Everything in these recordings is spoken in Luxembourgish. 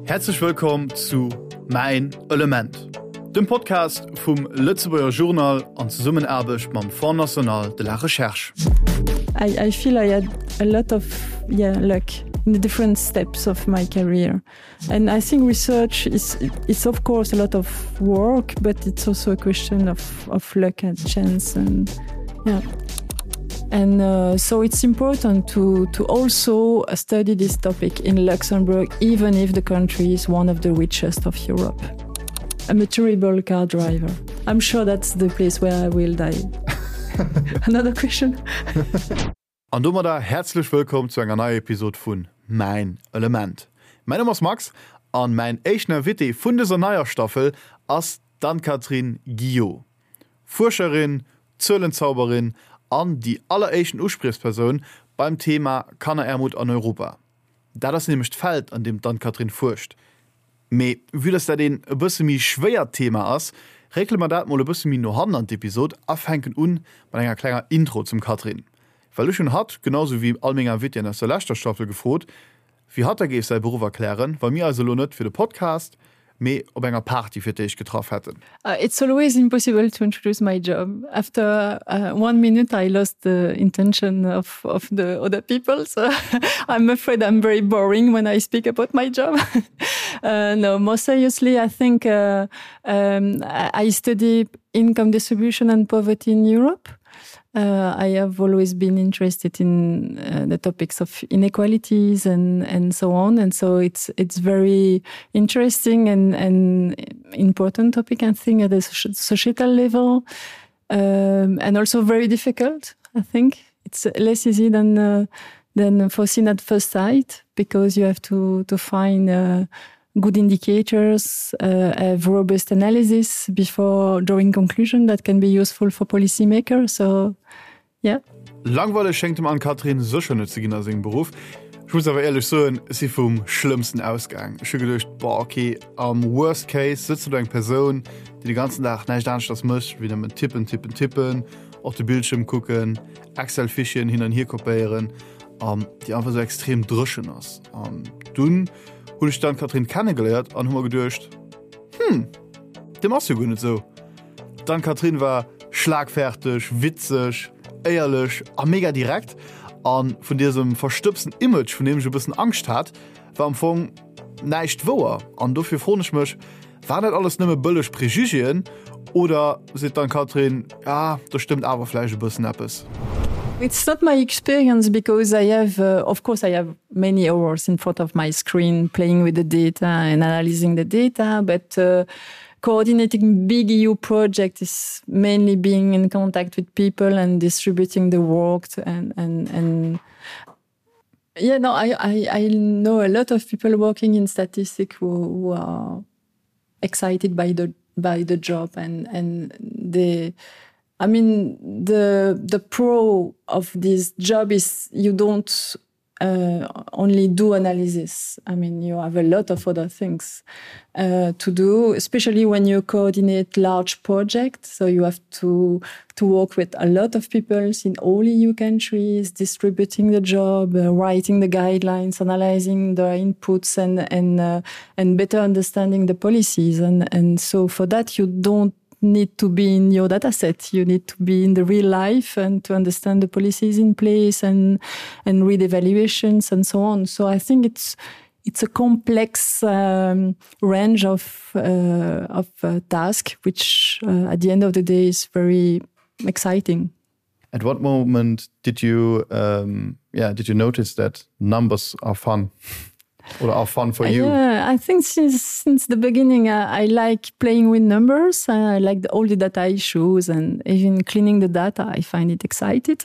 Häerzlech wëllkomm zu Mäin Element, dem Podcast vum Lëtzebuerger Journal an Zesummenaarbecht mam Fonds National de la Recherche. I, I feel I had a lot of yeah, luck in the different steps of my career. And I think research is it's of course a lot of work, but it's also a question of, of luck and chance and yeah. And uh, so it's important to, to also study this topic in Luxembourg, even if the country is one of the richest of Europe. I'm a terrible car driver. I'm sure that's the place where I will die. Another question. An domadder häerzlech wëllkomm zu enger neier Episod vun Mäin Element. Mäin Numm ass Max an mäin éischten Invité vun dëser neier Staffel ass d'Anne-Catherine Guio. Fuerscherin, Zuelenzauberin an déi alleréischten Uspriechspersoun beim Thema Kannerärmut an Europa. Dat ass nämlech d'Feld an deem d'Anne-Catherine fuerscht. Mee vue dass dat een e bësse méi schwéiert Thema ass, réckele mer dat mol e bësse méi no hannen an d'Episod a fänken un mat enger klenger Intro zum Catherine. Well ech hunn hatt, genau sou wéi all meng Invitéen aus der leschter Staffel gefrot, wéi hatt da géif säi Beruff erklären, wa mir eis elo net fir de Podcast, mee op enger Party fir d'éischt getraff hätten. It's always impossible to introduce my job. After one minute I lost the intention of of the other people so I'm afraid I'm very boring when I speak about my job. uh, no more seriously I think uh, um, I study income distribution and poverty in Europe. Uh, I have always been interested in uh, the topics of inequalities and, and so on and so it's it's very interesting and, and important topic and thing at the societal level um, and also very difficult I think it's less easy than uh, than foreseen at first sight because you have to to find uh, good indicators uh, have robust analysis before drawing conclusion that can be useful for policymakers so yeah Langweileg schéngt dem Anne-Catherine sécher net ze ginn a sengem Beruff. Ech muss awer éierlech soen, ech si vum Schlëmmsten ausgaang. Ech hu geduecht, boah, okay, am Worst Case sëtzt do eng Persoun, déi de ganzen Dag näischt aneschters mécht, wéi nëmmen tippen, tippen, tippen, op de Bildschierm kucken, Excel-Fichieren hin an hier kopéieren an déi einfach esou extrem dréchen ass. An dunn hunn ech d'Anne-Catherine kennegeléiert an hu mer geduecht, Hm, deem ass jo guer net esou. D'Anne-Catherine war schlagferteg, witzeg, éierlech a mega direkt a vun diesem verstëbsten Image, vun deem ech e bëssen Angscht hat, war am Fong näischt wouer. An dofir froen ech mech, Waren dat alles nëmme bëlleg Prejugéen oder seet d'Anne-Catherine, ah, do stëmmt awer vläicht e bëssen eppes? It's not my experience because I have uh, of course I have many hours in front of my screen playing with the data and analyzing the data, but uh, coordinating big EU project is mainly being in contact with people and distributing the work and and and yeah no I, I I know a lot of people working in statistics who, who are excited by the by the job and and the I mean the the pro of this job is you don't uh, only do analysis. I mean you have a lot of other things uh, to do, especially when you coordinate large projects. So you have to to work with a lot of people in all EU countries, distributing the job, uh, writing the guidelines, analyzing the inputs and and uh, and better understanding the policies. And, and so for that you don't need to be in your data set you need to be in the real life and to understand the policies in place and and read evaluations and so on so I think it's it's a complex um, range of uh, of uh, task which uh, at the end of the day is very exciting at what moment did you um, yeah did you notice that numbers are fun or are fun for you? Yeah, I think since since the beginning I, I like playing with numbers. I like the, all the data issues and even cleaning the data I find it excited.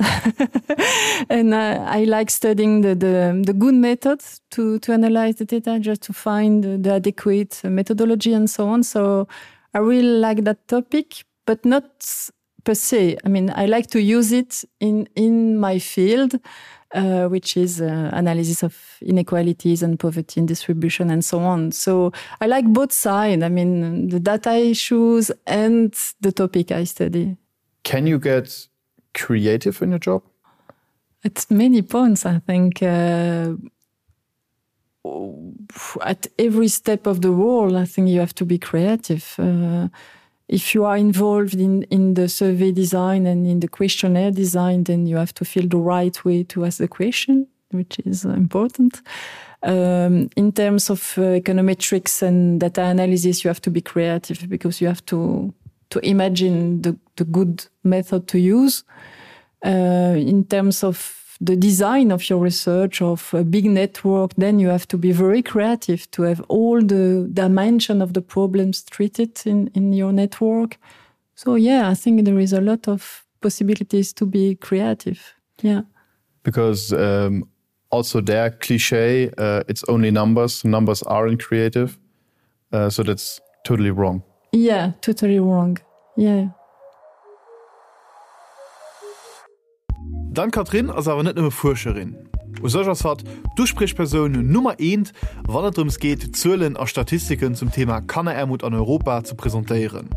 and uh, I like studying the, the, the good methods to, to analyze the data just to find the, the adequate methodology and so on. So I really like that topic, but not per se. I mean I like to use it in, in my field uh, which is uh, analysis of inequalities and poverty and distribution and so on. So I like both sides. I mean the data issues and the topic I study. Can you get creative in your job? At many points, I think uh, At every step of the world, I think you have to be creative. Uh, if you are involved in, in the survey design and in the questionnaire design, then you have to feel the right way to ask the question, which is important. Um, in terms of uh, econometrics and data analysis, you have to be creative because you have to, to imagine the, the good method to use. Uh, in terms of the design of your research of a big network, then you have to be very creative to have all the dimension of the problems treated in, in your network. So yeah, I think there is a lot of possibilities to be creative. Yeah. Because um, also their cliche, uh, it's only numbers, numbers aren't creative. Uh, so that's totally wrong. Yeah, totally wrong. Yeah. D'Anne-Catherine ass awer net nëmme Fuerscherin. U sech ass hatt d'Uspriechpersoun Nummer eent, wann et drëms geet, Zuelen a Statistiken zum Thema Kanneraarmut an Europa ze presentéieren.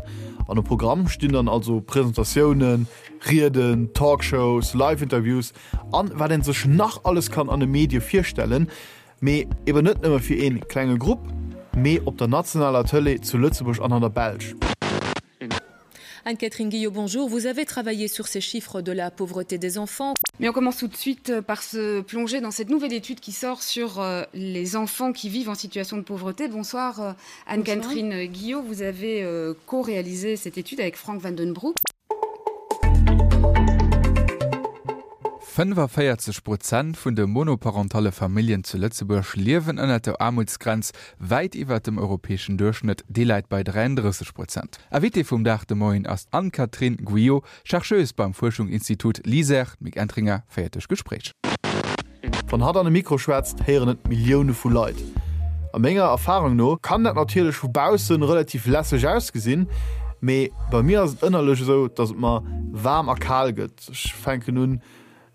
An um Programm stinn dann also Presentatiounen, Rieden, Talkshows, Live-Interviews an wat een sech nach alles kann an de Medie virstellen. Mee eben net nëmme fir een klenge Grupp, mee op der nationaler Tëlee zu Lëtzebuerg an an der Belsch. Anne-Catherine Guillot, bonjour. Vous avez travaillé sur ces chiffres de la pauvreté des enfants. Mais on commence tout de suite euh, par se plonger dans cette nouvelle étude qui sort sur euh, les enfants qui vivent en situation de pauvreté. Bonsoir euh, Anne-Catherine Guillot, vous avez co-réalisé cette étude avec Frank Vandenbroek. 45 Prozent vun de monoparentale Familljen zu Lëtzebuerg liewen ënnert der Aarmutsgrenz, wäit iwwert dem europäeschen Duerchschnëtt, dee läit bei 33 Prozent. Invitée vum Dag de Moien ass d'Anne-Catherine Guyot, Chercheuse beim Fuerschungsinstitut LISER. D'Mick Entringer féiert duerch d'Gespréich. Wann hatt an e Mikro schwätzt, héieren et Millioune vu Leit. A menger Erfarung no kann dat natierlech vu baussen relativ lässeg ausgesinn, mee bei mir ass et ënnerlech esou, dass et mer waarm a kal gëtt. Ech fänken un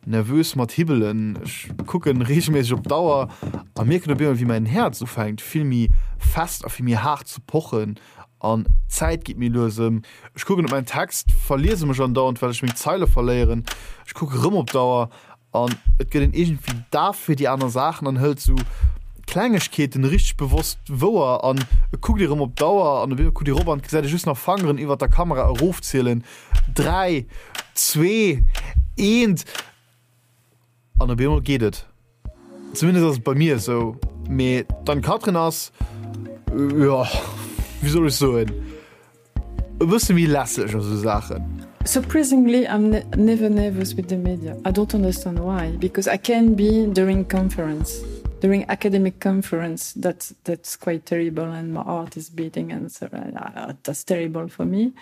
nervös mat hibbelen, ech kucken reegelméisseg op d'Auer a mierken op eemol wéi mäin Häerz ufänkt vill méi fest a vill méi haart ze pochen an d'Zäit geet méi lues ëm. Ech kucken op mäin Text, verliese mech andauernd well ech meng Zeile verléieren. Ech kucke rëm op d'Auer An et gëtt een iergendwéi daf fir déi aner Saachen an hëlt sou Klengegkeeten richteg bewosst wouer an et kuckt ee rëm op d'Auer an op eemol kuckt ee rop an et gesäit ee just nach Fangeren iwwert der Kamera erofzielen, 3, 2, 1 an op eemol geet et. Zumindest ass et bei mir esou. Mee d'Anne-Catherine ass, jo, wéi soll ech soen, E bësse méi lässeg a sou Saachen. Surprisingly I'm never nervous with the media. I don't understand why because I can be during conference during academic conference that that's quite terrible and my heart is beating and so uh, that's terrible for me.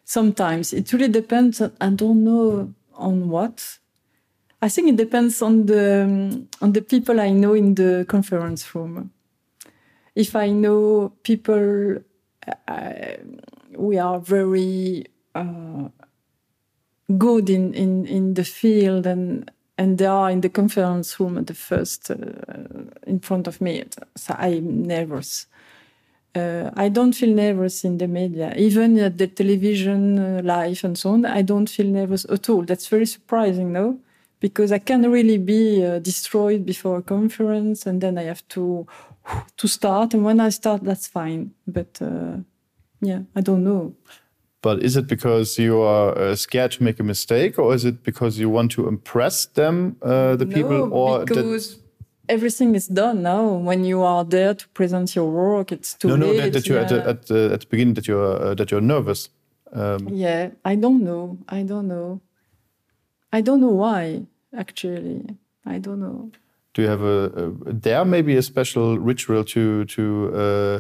Sometimes it really depends on, I don't know on what. I think it depends on the on the people I know in the conference room. If I know people uh, we are very uh, good in, in, in the field and and they are in the conference room at the first uh, in front of me so I'm nervous uh, I don't feel nervous in the media even at the television uh, life and so on I don't feel nervous at all that's very surprising no because I can really be uh, destroyed before a conference and then I have to to start and when I start that's fine but uh, yeah I don't know but is it because you are uh, scared to make a mistake or is it because you want to impress them uh, the no, people or because everything is done now when you are there to present your work it's too no, no, late, that, that you yeah. at, the, at, the, at the beginning that you're uh, that you're nervous um, yeah I don't know I don't know I don't know why actually I don't know do you have a, a there maybe a special ritual to to uh,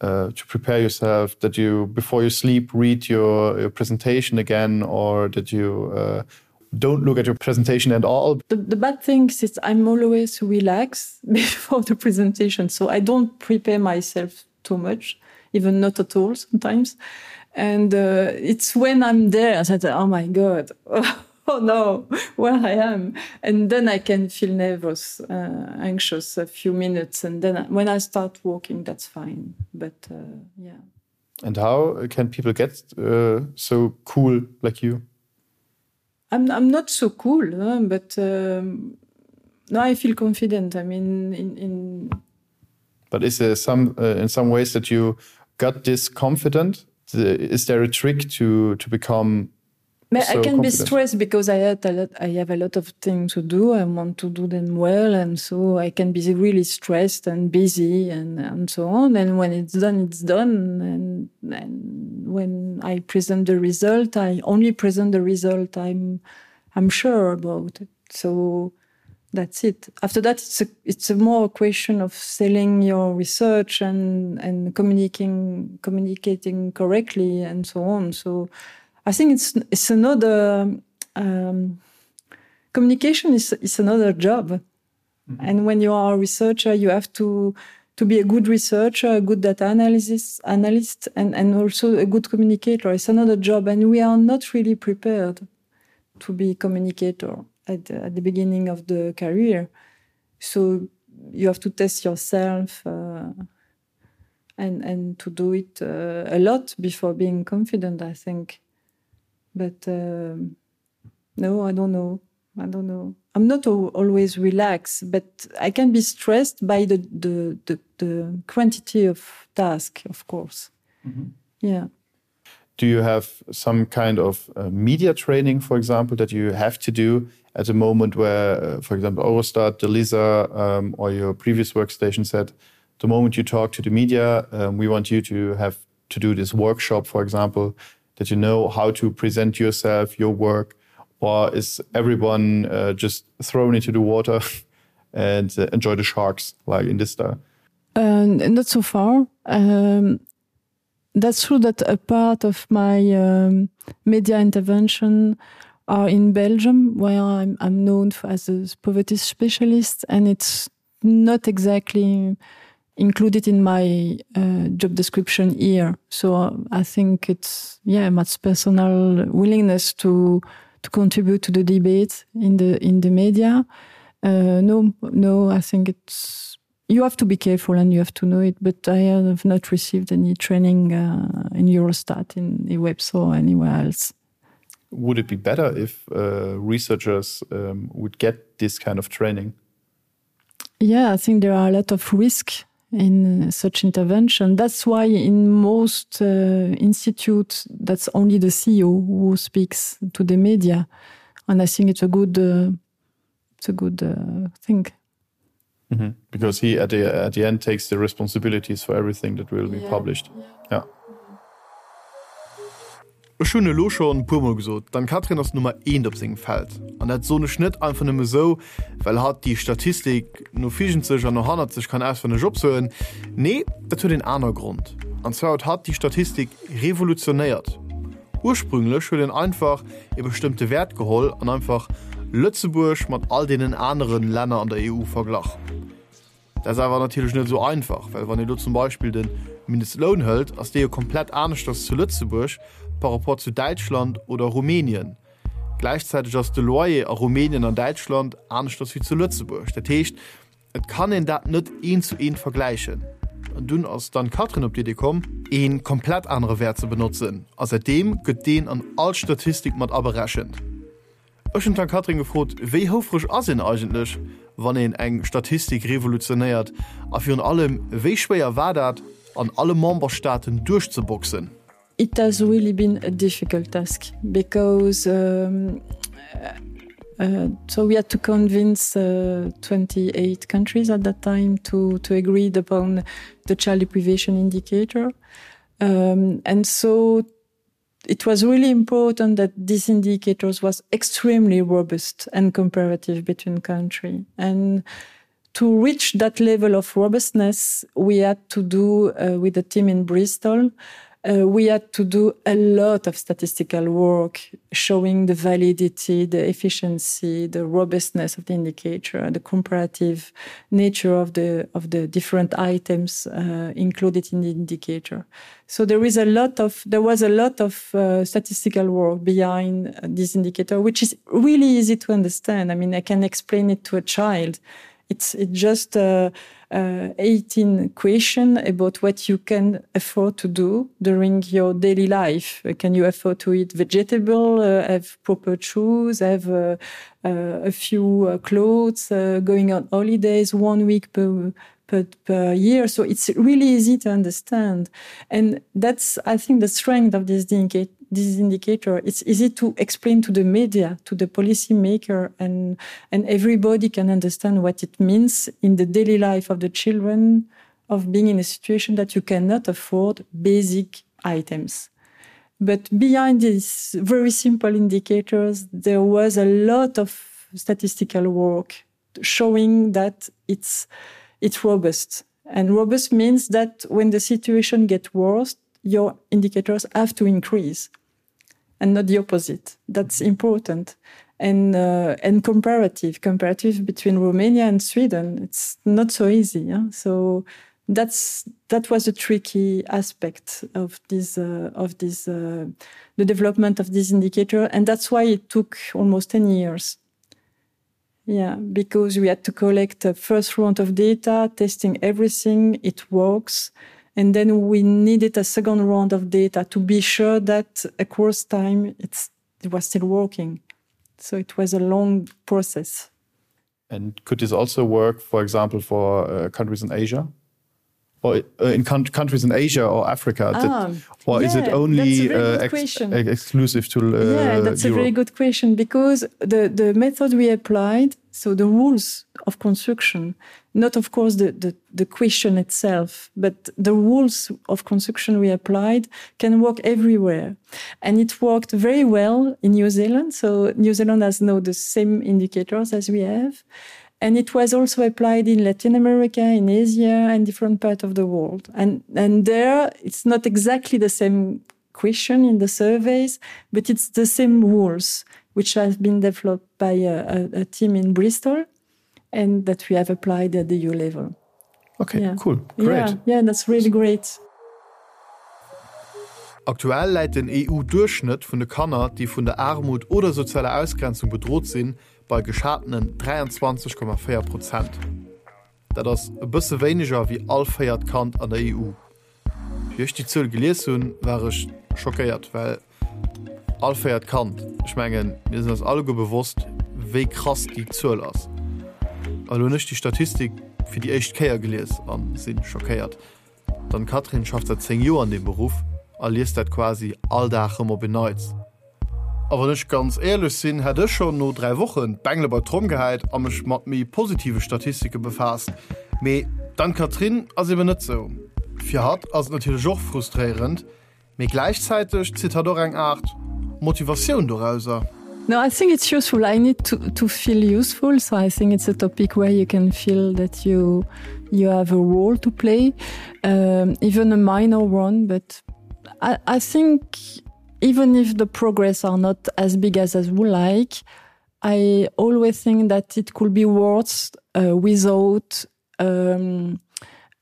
uh, to prepare yourself that you before you sleep read your, your presentation again or that you uh, don't look at your presentation at all the, the bad thing is I'm always relaxed before the presentation so I don't prepare myself too much even not at all sometimes and uh, it's when I'm there I said oh my god oh no where I am and then I can feel nervous uh, anxious a few minutes and then when I start walking that's fine but uh, yeah and how can people get uh, so cool like you I'm, I'm not so cool huh? but um, No, I feel confident. I mean in, in But is there some uh, in some ways that you got this confident? Is there a trick to to become so I can be stressed because I had a lot, I have a lot of things to do. I want to do them well, and so I can be really stressed and busy and, and so on. And when it's done, it's done. And, and when I present the result, I only present the result I'm I'm sure about it. So that's it. After that, it's a, it's a more a question of selling your research and, and communicating communicating correctly and so on. So I think it's it's another um, communication is, is another job. Mm -hmm. And when you are a researcher, you have to to be a good researcher, a good data analysis analyst and, and also a good communicator. It's another job and we are not really prepared to be communicator at the, at the beginning of the career. So you have to test yourself uh, and, and to do it uh, a lot before being confident, I think. But um, no, I don't know. I don't know. I'm not always relaxed, but I can be stressed by the, the, the, the quantity of task, of course. Mm -hmm. Yeah. Do you have some kind of uh, media training, for example, that you have to do at a moment where, uh, for example, Eurostat, the Lisa, um, or your previous workstation said, the moment you talk to the media, um, we want you to have to do this workshop, for example, that you know how to present yourself, your work, or is everyone uh, just thrown into the water and uh, enjoy the sharks like in this style? Uh, not so far. Um, that's true that a part of my um, media intervention are in Belgium, where I'm, I'm known for, as a poverty specialist, and it's not exactly included in my uh, job description here. So uh, I think it's yeah, much personal willingness to to contribute to the debate in the in the media. Uh, no, no, I think it's you have to be careful and you have to know it, but I have not received any training uh, in Eurostat, in eWebs or anywhere else. Would it be better if uh, researchers um, would get this kind of training? Yeah, I think there are a lot of risk in such intervention. That's why in most uh, institutes, that's only the CEO who speaks to the media. And I think it's a good, uh, it's a good uh, thing. Mm -hmm. Because he at the, at the end takes the responsibilities for everything that will be yeah. published. Yeah. yeah. Ech hunn elo schonn e puer mol gesot, d'Ann-Kathrin ass Nummer eent op sengem Feld. An dat soen ech net einfach nëmme sou, well hatt déi Statistik no virgent sech an no hannert sech kann auswenneg opsoen. Nee, dat huet een aner Grond. An zwar huet hatt déi Statistik revolutionéiert. Ursprünglech huet een einfach ee bestëmmte Wäert geholl an einfach Lëtzebuerg mat all deenen anere Länner an der EU verglach. Dat ass awer natierlech net esou einfach, well wann ee lo zum Beispill de Mindestloun hëlt, ass dee jo komplett aneschters zu Lëtzebuerg par rapport zu Däitschland oder Rumänien. Gläichzäiteg ass de Loyer a Rumänien an Däitschland aneschters wéi zu Lëtzebuerg. Dat heescht, et kann een dat net eent zu eent vergläichen. An dunn ass d'Anne-Catherine op d'Idee komm, ee komplett anere Wäert ze benotzen a säitdeem gëtt deen an all Statistik mat aberechent. Ech hunn d'Anne-Catherine gefrot, wéi houfreg ass een eigentlech, wann een eng Statistik revolutionéiert a virun allem, wéi schwéier war dat, an alle Memberstaaten duerchzeboxen? It has really been a difficult task because um, uh, so we had to convince uh, 28 countries at that time to, to agree upon the child deprivation indicator. Um, and so it was really important that these indicators was extremely robust and comparative between country. And to reach that level of robustness, we had to do uh, with the team in Bristol, uh, we had to do a lot of statistical work showing the validity, the efficiency, the robustness of the indicator, the comparative nature of the, of the different items uh, included in the indicator. So there is a lot of there was a lot of uh, statistical work behind uh, this indicator, which is really easy to understand. I mean, I can explain it to a child. It's, it's just uh, uh, 18 question about what you can afford to do during your daily life. Can you afford to eat vegetable, uh, have proper shoes, have uh, uh, a few uh, clothes, uh, going on holidays one week per, per, per year. So it's really easy to understand. And that's, I think, the strength of this indicator this indicator it's easy to explain to the media to the policymaker and and everybody can understand what it means in the daily life of the children of being in a situation that you cannot afford basic items but behind these very simple indicators there was a lot of statistical work showing that it's it's robust and robust means that when the situation gets worse your indicators have to increase and not the opposite. That's important. And, uh, and comparative, comparative between Romania and Sweden, it's not so easy. Yeah? So that's, that was a tricky aspect of this, uh, of this, uh, the development of this indicator. And that's why it took almost 10 years. Yeah, because we had to collect the first round of data, testing everything, it works and then we needed a second round of data to be sure that across time it's, it was still working. So it was a long process. And could this also work, for example, for uh, countries in Asia? Or uh, in countries in Asia or Africa? Ah, that, or yeah, is it only uh, ex exclusive to uh, Yeah, that's Europe? a very good question because the, the method we applied, so the rules of construction, not of course the, the, the question itself, but the rules of construction we applied can work everywhere. And it worked very well in New Zealand. So New Zealand has now the same indicators as we have. And it was also applied in Latin America, in Asia, and different parts of the world. And, and there, it's not exactly the same question in the surveys, but it's the same rules which have been developed by a, a, a team in Bristol and that we have applied at the EU level. Okay, yeah. cool. Great. Yeah, yeah, that's really great. Aktuell läit den EU-Duerchschnëtt vun de Kanner, déi vun der Aarmut oder sozialer Ausgrenzung bedrot sinn, bei geschatenen 23,4 Prozent. Dat ass e bësse wéineger wéi all véiert Kand an der EU. Wéi ech déi Zuel gelies hunn, war ech schockéiert, well all véiert Kand, ech mengen, mir sinn eis alleguer bewosst, wéi krass déi Zuel ass. A lo hunn ech déi Statistik fir déi éischt Kéier gelies a si schockéiert. D'Anne-Catherine schafft säit 10 Joer an deem Beruff a liest dat quasi all Dag rëm op en Neits. A wann ech ganz éierlech sinn, hätt ech schonn no 3 Wochen d'Bengele bei d'Tromm gehäit a mech mat méi positive Statistike befaasst. Mee d'Anne-Catherine ass eben net sou. Fir hatt ass et natierlech och frustréierend, Mee gläichzäiteg zitt hatt och eng Aart Motivatioun dorauser. No, I think it's useful. I need to, to feel useful, so I think it's a topic where you can feel that you you have a role to play, um, even a minor one, but I, I think even if the progress are not as big as as we like, I always think that it could be worse uh, without um,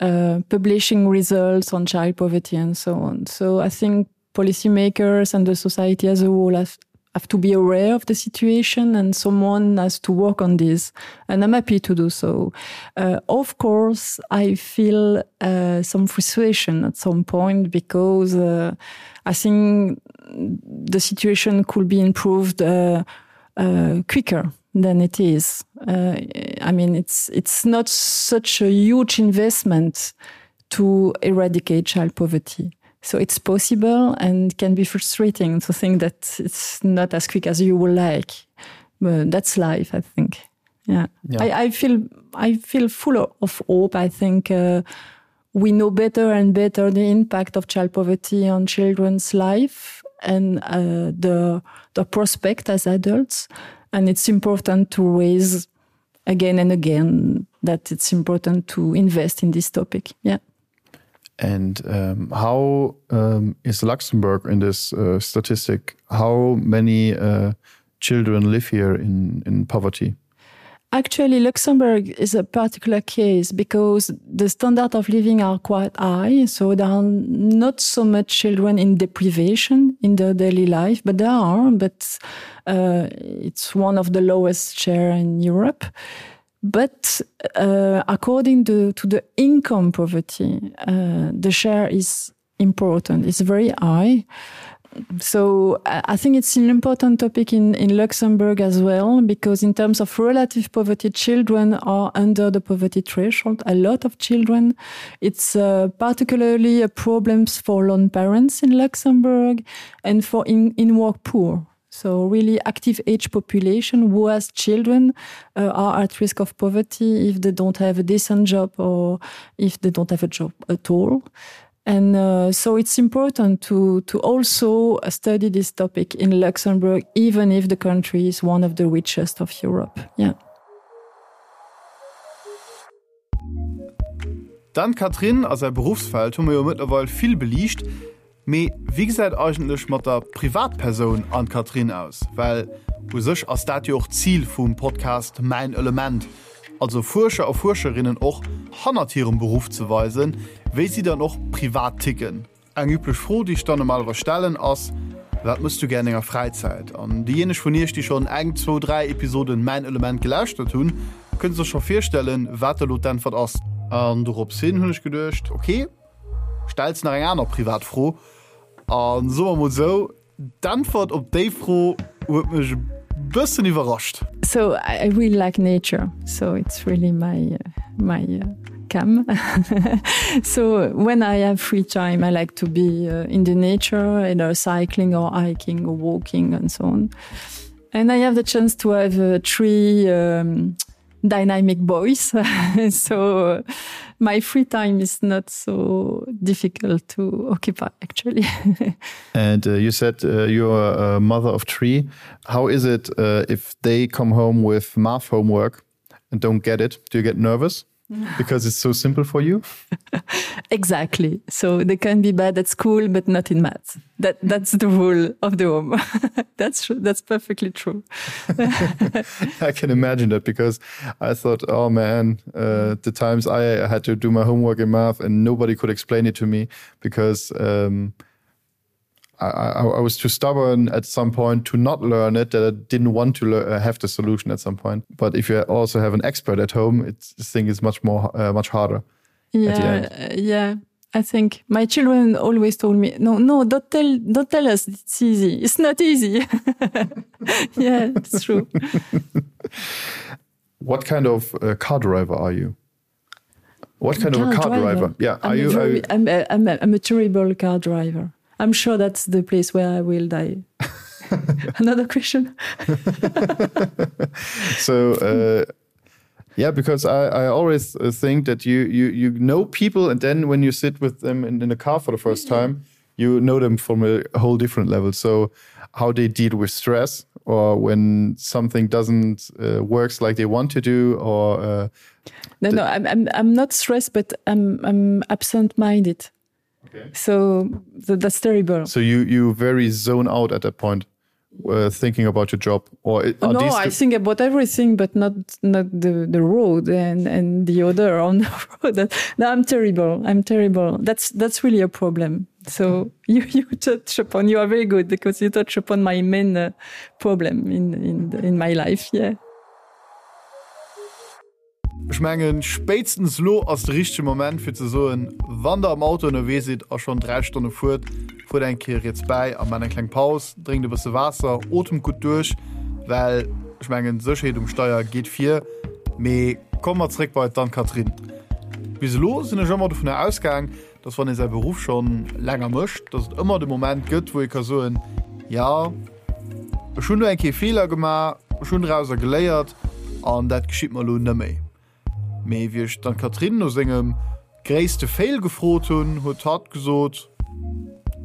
uh, publishing results on child poverty and so on. So I think policymakers and the society as a whole have, have to be aware of the situation and someone has to work on this and I'm happy to do so. Uh, of course, I feel uh, some frustration at some point because uh, I think the situation could be improved uh, uh, quicker than it is. Uh, I mean, it's, it's not such a huge investment to eradicate child poverty. So it's possible and can be frustrating to think that it's not as quick as you would like. But that's life, I think. Yeah. yeah. I, I feel I feel full of hope. I think uh, we know better and better the impact of child poverty on children's life and uh, the, the prospect as adults. And it's important to raise again and again that it's important to invest in this topic. Yeah. And um, how um, is Luxembourg in this uh, statistic? How many uh, children live here in, in poverty? Actually, Luxembourg is a particular case because the standard of living are quite high, so there are not so much children in deprivation in their daily life, but there are, but uh, it's one of the lowest share in Europe. But uh, according to, to the income poverty, uh, the share is important. It's very high. So I think it's an important topic in, in Luxembourg as well, because in terms of relative poverty, children are under the poverty threshold. A lot of children. It's uh, particularly a problems for lone parents in Luxembourg and for in, in work poor. So really active age population who has children uh, are at risk of poverty if they don't have a decent job or if they don't have a job at all. And uh, so it's important to, to also study this topic in Luxembourg, even if the country is one of the richest of Europe. Yeah. D'Anne-Catherine a säi Beruffsfeld hu mer jo mëttlerweil vill beliicht. Mee wéi gesäit eigentlech mat der Privatpersoun Anne-Catherine aus? Well u sech ass dat jo och d'Zil vum Podcast Mäin Element, also Fuerscher a Fuerscherinnen och hannert hirem Beruff ze weisen, wéi si dann och privat ticken. Eng üblech Fro, déi ech dann normalerweis stellen, ass, Wat mëss du gär an denger Fräizäit? An déijéineg vun iech, déi schonn eng, zwou, dräi Episoden Mäin Element gelauschtert hunn, kënne sech scho virstellen, wat elo d'Äntwert ass. An dorops hin hunn ech geduecht, ok, stells nach eng aner privat Fro. A soe mer mol esou, D'Äntwert op déi Fro huet mech e bëssen iwwerrascht. So I really like nature, so it's really my my cam. so when I have free time, I like to be uh, in the nature, either cycling or hiking or walking and so on. And I have the chance to have uh, three um, dynamic boys so uh, my free time is not so difficult to occupy actually and uh, you said uh, you're a mother of three how is it uh, if they come home with math homework and don't get it do you get nervous because it's so simple for you exactly so they can be bad at school but not in maths that that's the rule of the home that's that's perfectly true I can imagine that because I thought oh man uh, the times I had to do my homework in math and nobody could explain it to me because um, I, I, I was too stubborn at some point to not learn it that I didn't want to uh, have the solution at some point but if you also have an expert at home it's this thing is much more uh, much harder yeah uh, yeah I think my children always told me no no don't tell don't tell us it's easy it's not easy yeah it's true what kind of uh, car driver are you what kind car of a car driver, driver? yeah I'm are you, very, are you I'm, a, I'm, a, I'm a terrible car driver I'm sure that's the place where I will die another question so uh, yeah because I, I always uh, think that you you you know people and then when you sit with them in, in the car for the first mm -hmm. time you know them from a whole different level so how they deal with stress or when something doesn't uh, works like they want to do or uh, no no I'm, I'm, I'm not stressed but I'm, I'm absent minded okay. so, so that's terrible so you you very zone out at that point uh, thinking about your job or oh, no I think about everything but not not the the road and and the other on the road no I'm terrible I'm terrible that's that's really a problem so you you touch upon you are very good because you touch upon my main uh, problem in in in my life yeah Ech mengen, spéitstens elo ass de richtege Moment fir ze soen, wann der am Auto ënnerwee sidd a schonn 3 Stonne fuert, fuert eng Kéier riets bäi a maacht eng kleng Paus, drénkt e bësse Waasser, otemt gutt duerch, well ech mengen, d'Sécherheet um Steier geet vir. Mee komme mer zréck bei d'Anne-Catherine. Bis elo sinn ech ëmmer dovunner ausgaang, dass wann ee säi Beruff schonn länger mécht, dass et ëmmer de Moment gëtt, wou ee ka soen, jo, ech hunn do eng Kéier Feeler gemaach, ech hunn drauser geléiert an dat geschitt mer elo neméi. Mee wéi ech d'Anne-Catherine no sengem gréisste Fail gefrot hunn, huet hatt gesot,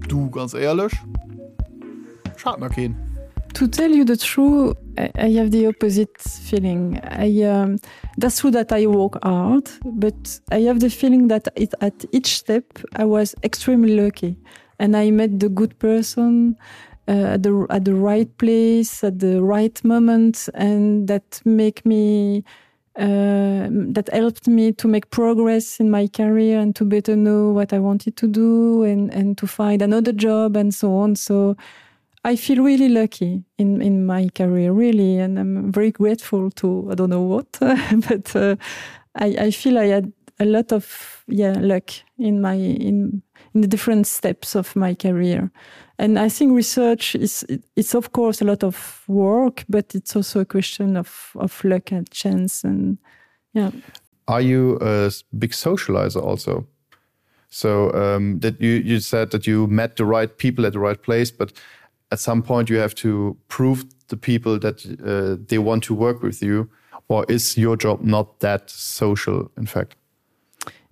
Du, ganz éierlech, ech hat nach keen. To tell you the truth, I have the opposite feeling. I, um, that's true that I work hard, but I have the feeling that it, at each step I was extremely lucky and I met the good person uh, at, the, at the right place at the right moment and that make me uh, that helped me to make progress in my career and to better know what I wanted to do and, and to find another job and so on. So. I feel really lucky in in my career really and I'm very grateful to I don't know what but uh, I, I feel I had a lot of yeah luck in my in in the different steps of my career and I think research is it's of course a lot of work but it's also a question of of luck and chance and yeah are you a big socializer also so um, that you you said that you met the right people at the right place but at some point you have to prove the people that uh, they want to work with you or is your job not that social in fact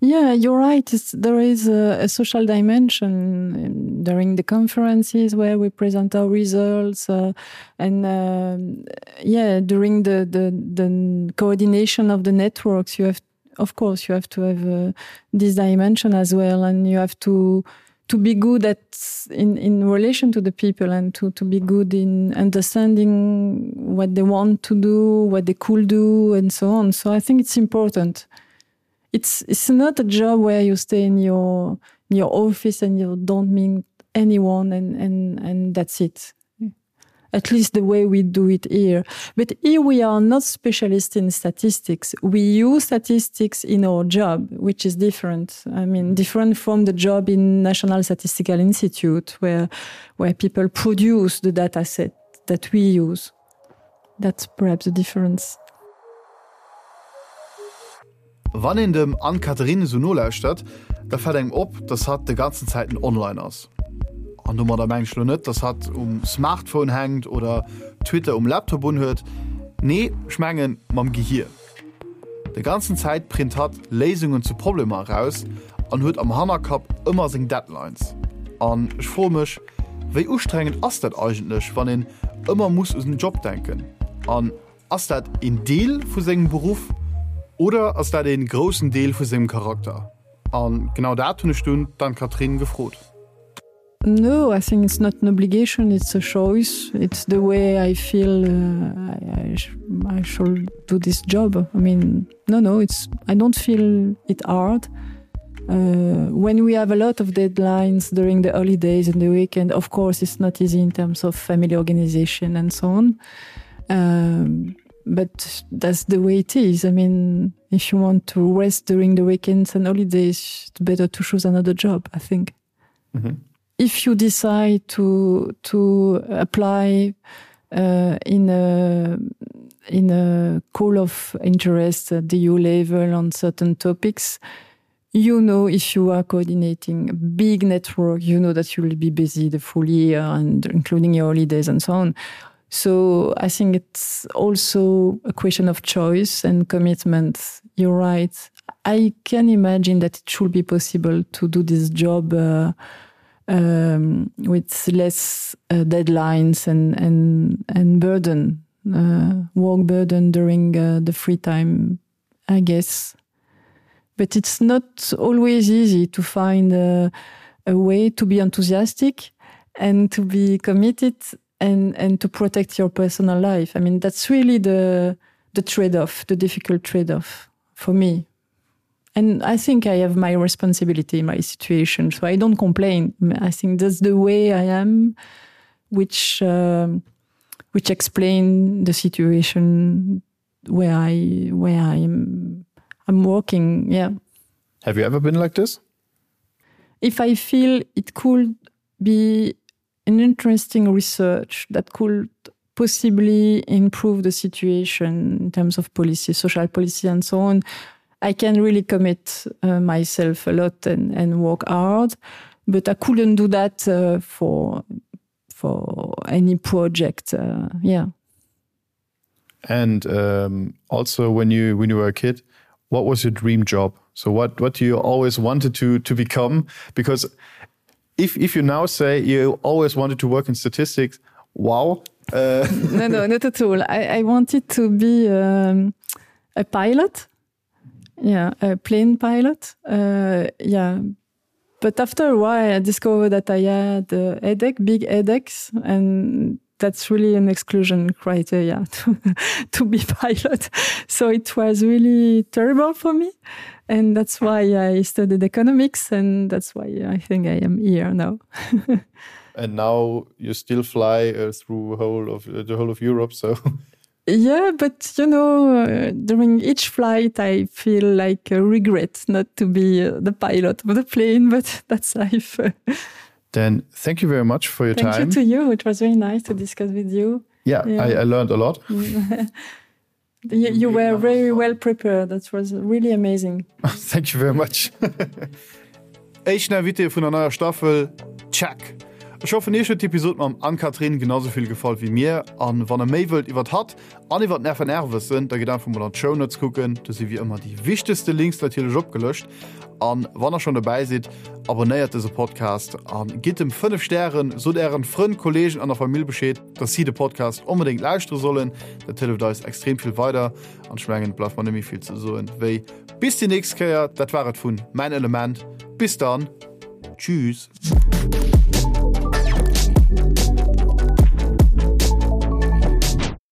Yeah, you're right. It's, there is a, a social dimension during the conferences where we present our results uh, and um, yeah, during the, the, the coordination of the networks, you have of course you have to have uh, this dimension as well and you have to to be good at in in relation to the people and to to be good in understanding what they want to do what they could do and so on so I think it's important it's it's not a job where you stay in your in your office and you don't mean anyone and and and that's it at least the way we do it here. But here we are not specialists in statistics. We use statistics in our job, which is different. I mean different from the job in National Statistical Institute where where people produce the data set that we use. That's perhaps the difference. Wann een dem Anne-Catherine esou nolauschtert, da fält engem op, dass hatt de ganzen Zäiten online ass. An domadder mengen ech lo net, dass hatt um Smartphone hänkt oder Twitter um Laptop unhuet. Nee, ech mengen mam Gehier. De ganzen Zäit print hatt Léisungen zu Problemer eraus an huet am Hannerkapp ëmmer seng Deadlines. An ech froe mech, wéi ustrengend ass dat eigentlech, wann een ëmmer muss u den Job denken? An Ass dat een Deel vu sengem Beruff oder ass dat een groussen Deel vu sengem Charakter? An genau dat hunn ech dunn d'Anne-Catherine gefrot. No, I think it's not an obligation, it's a choice. It's the way I feel uh, I, I, sh I should do this job. I mean, no, no, it's I don't feel it hard. Uh, when we have a lot of deadlines during the holidays and the weekend, of course, it's not easy in terms of family organization and so on. Um, but that's the way it is. I mean, if you want to rest during the weekends and holidays, it's better to choose another job, I think. Mm -hmm. If you decide to to apply uh, in a in a call of interest at the EU level on certain topics, you know if you are coordinating a big network, you know that you will be busy the full year and including your holidays and so on. So I think it's also a question of choice and commitment. You're right. I can imagine that it should be possible to do this job uh, um, with less uh, deadlines and, and, and burden, uh, work burden during uh, the free time, I guess. But it's not always easy to find a, a way to be enthusiastic and to be committed and and to protect your personal life. I mean that's really the the trade-off, the difficult trade-off for me. And I think I have my responsibility in my situation, so I don't complain. I think that's the way I am, which um, which explain the situation where I where I'm I'm working yeah. Have you ever been like this? If I feel it could be an interesting research that could possibly improve the situation in terms of policy, social policy and so on, I can really commit uh, myself a lot and, and work hard, but I couldn't do that uh, for for any project uh, yeah. And um, also when you when you were a kid, what was your dream job? So what what do you always wanted to to become? Because if if you now say you always wanted to work in statistics, wow. Uh. no, no, not at all. I, I wanted to be um, a pilot. Yeah, a plane pilot. Uh, yeah. But after a while, I discovered that I had a headache, big headaches, and. that's really an exclusion criteria to, to be pilot. So it was really terrible for me. And that's why I studied economics and that's why I think I am here now. and now you still fly uh, through whole of uh, the whole of Europe so Yeah, but you know, uh, during each flight I feel like a regret not to be uh, the pilot of the plane, but that's life. Then thank you very much for your thank time. Thank you to you. It was very nice to discuss with you. Yeah, yeah. I, I learned a lot. you, you were very well prepared. That was really amazing. thank you very much. Éischten Invité vun der neier Staffel, check! Ech hoffen iech huet d'Episod mam Anne-Catherine genau sou vill gefall wéi mir an wann der méi wëllt iwwert hatt an iwwert den FNR wëssen, da gitt einfach mol an d'Shownotes kucken, do si wéi ëmmer déi wichtegste Links natierlech opgelëscht. An wann der schonn dobäi sidd, abonnéiert dëse Podcast an gitt em 5 Stären, sot ären Frënn, Kollegen an der Famill Bescheed, dass si de Podcast onbedéngt lauschtere sollen, dat hëlleft eis extrem vill weider an ech mengen et bleift mer net méi vill ze soen wéi bis déi nächst Kéier. Dat war et vun Mäin Element, bis dann, tschüss!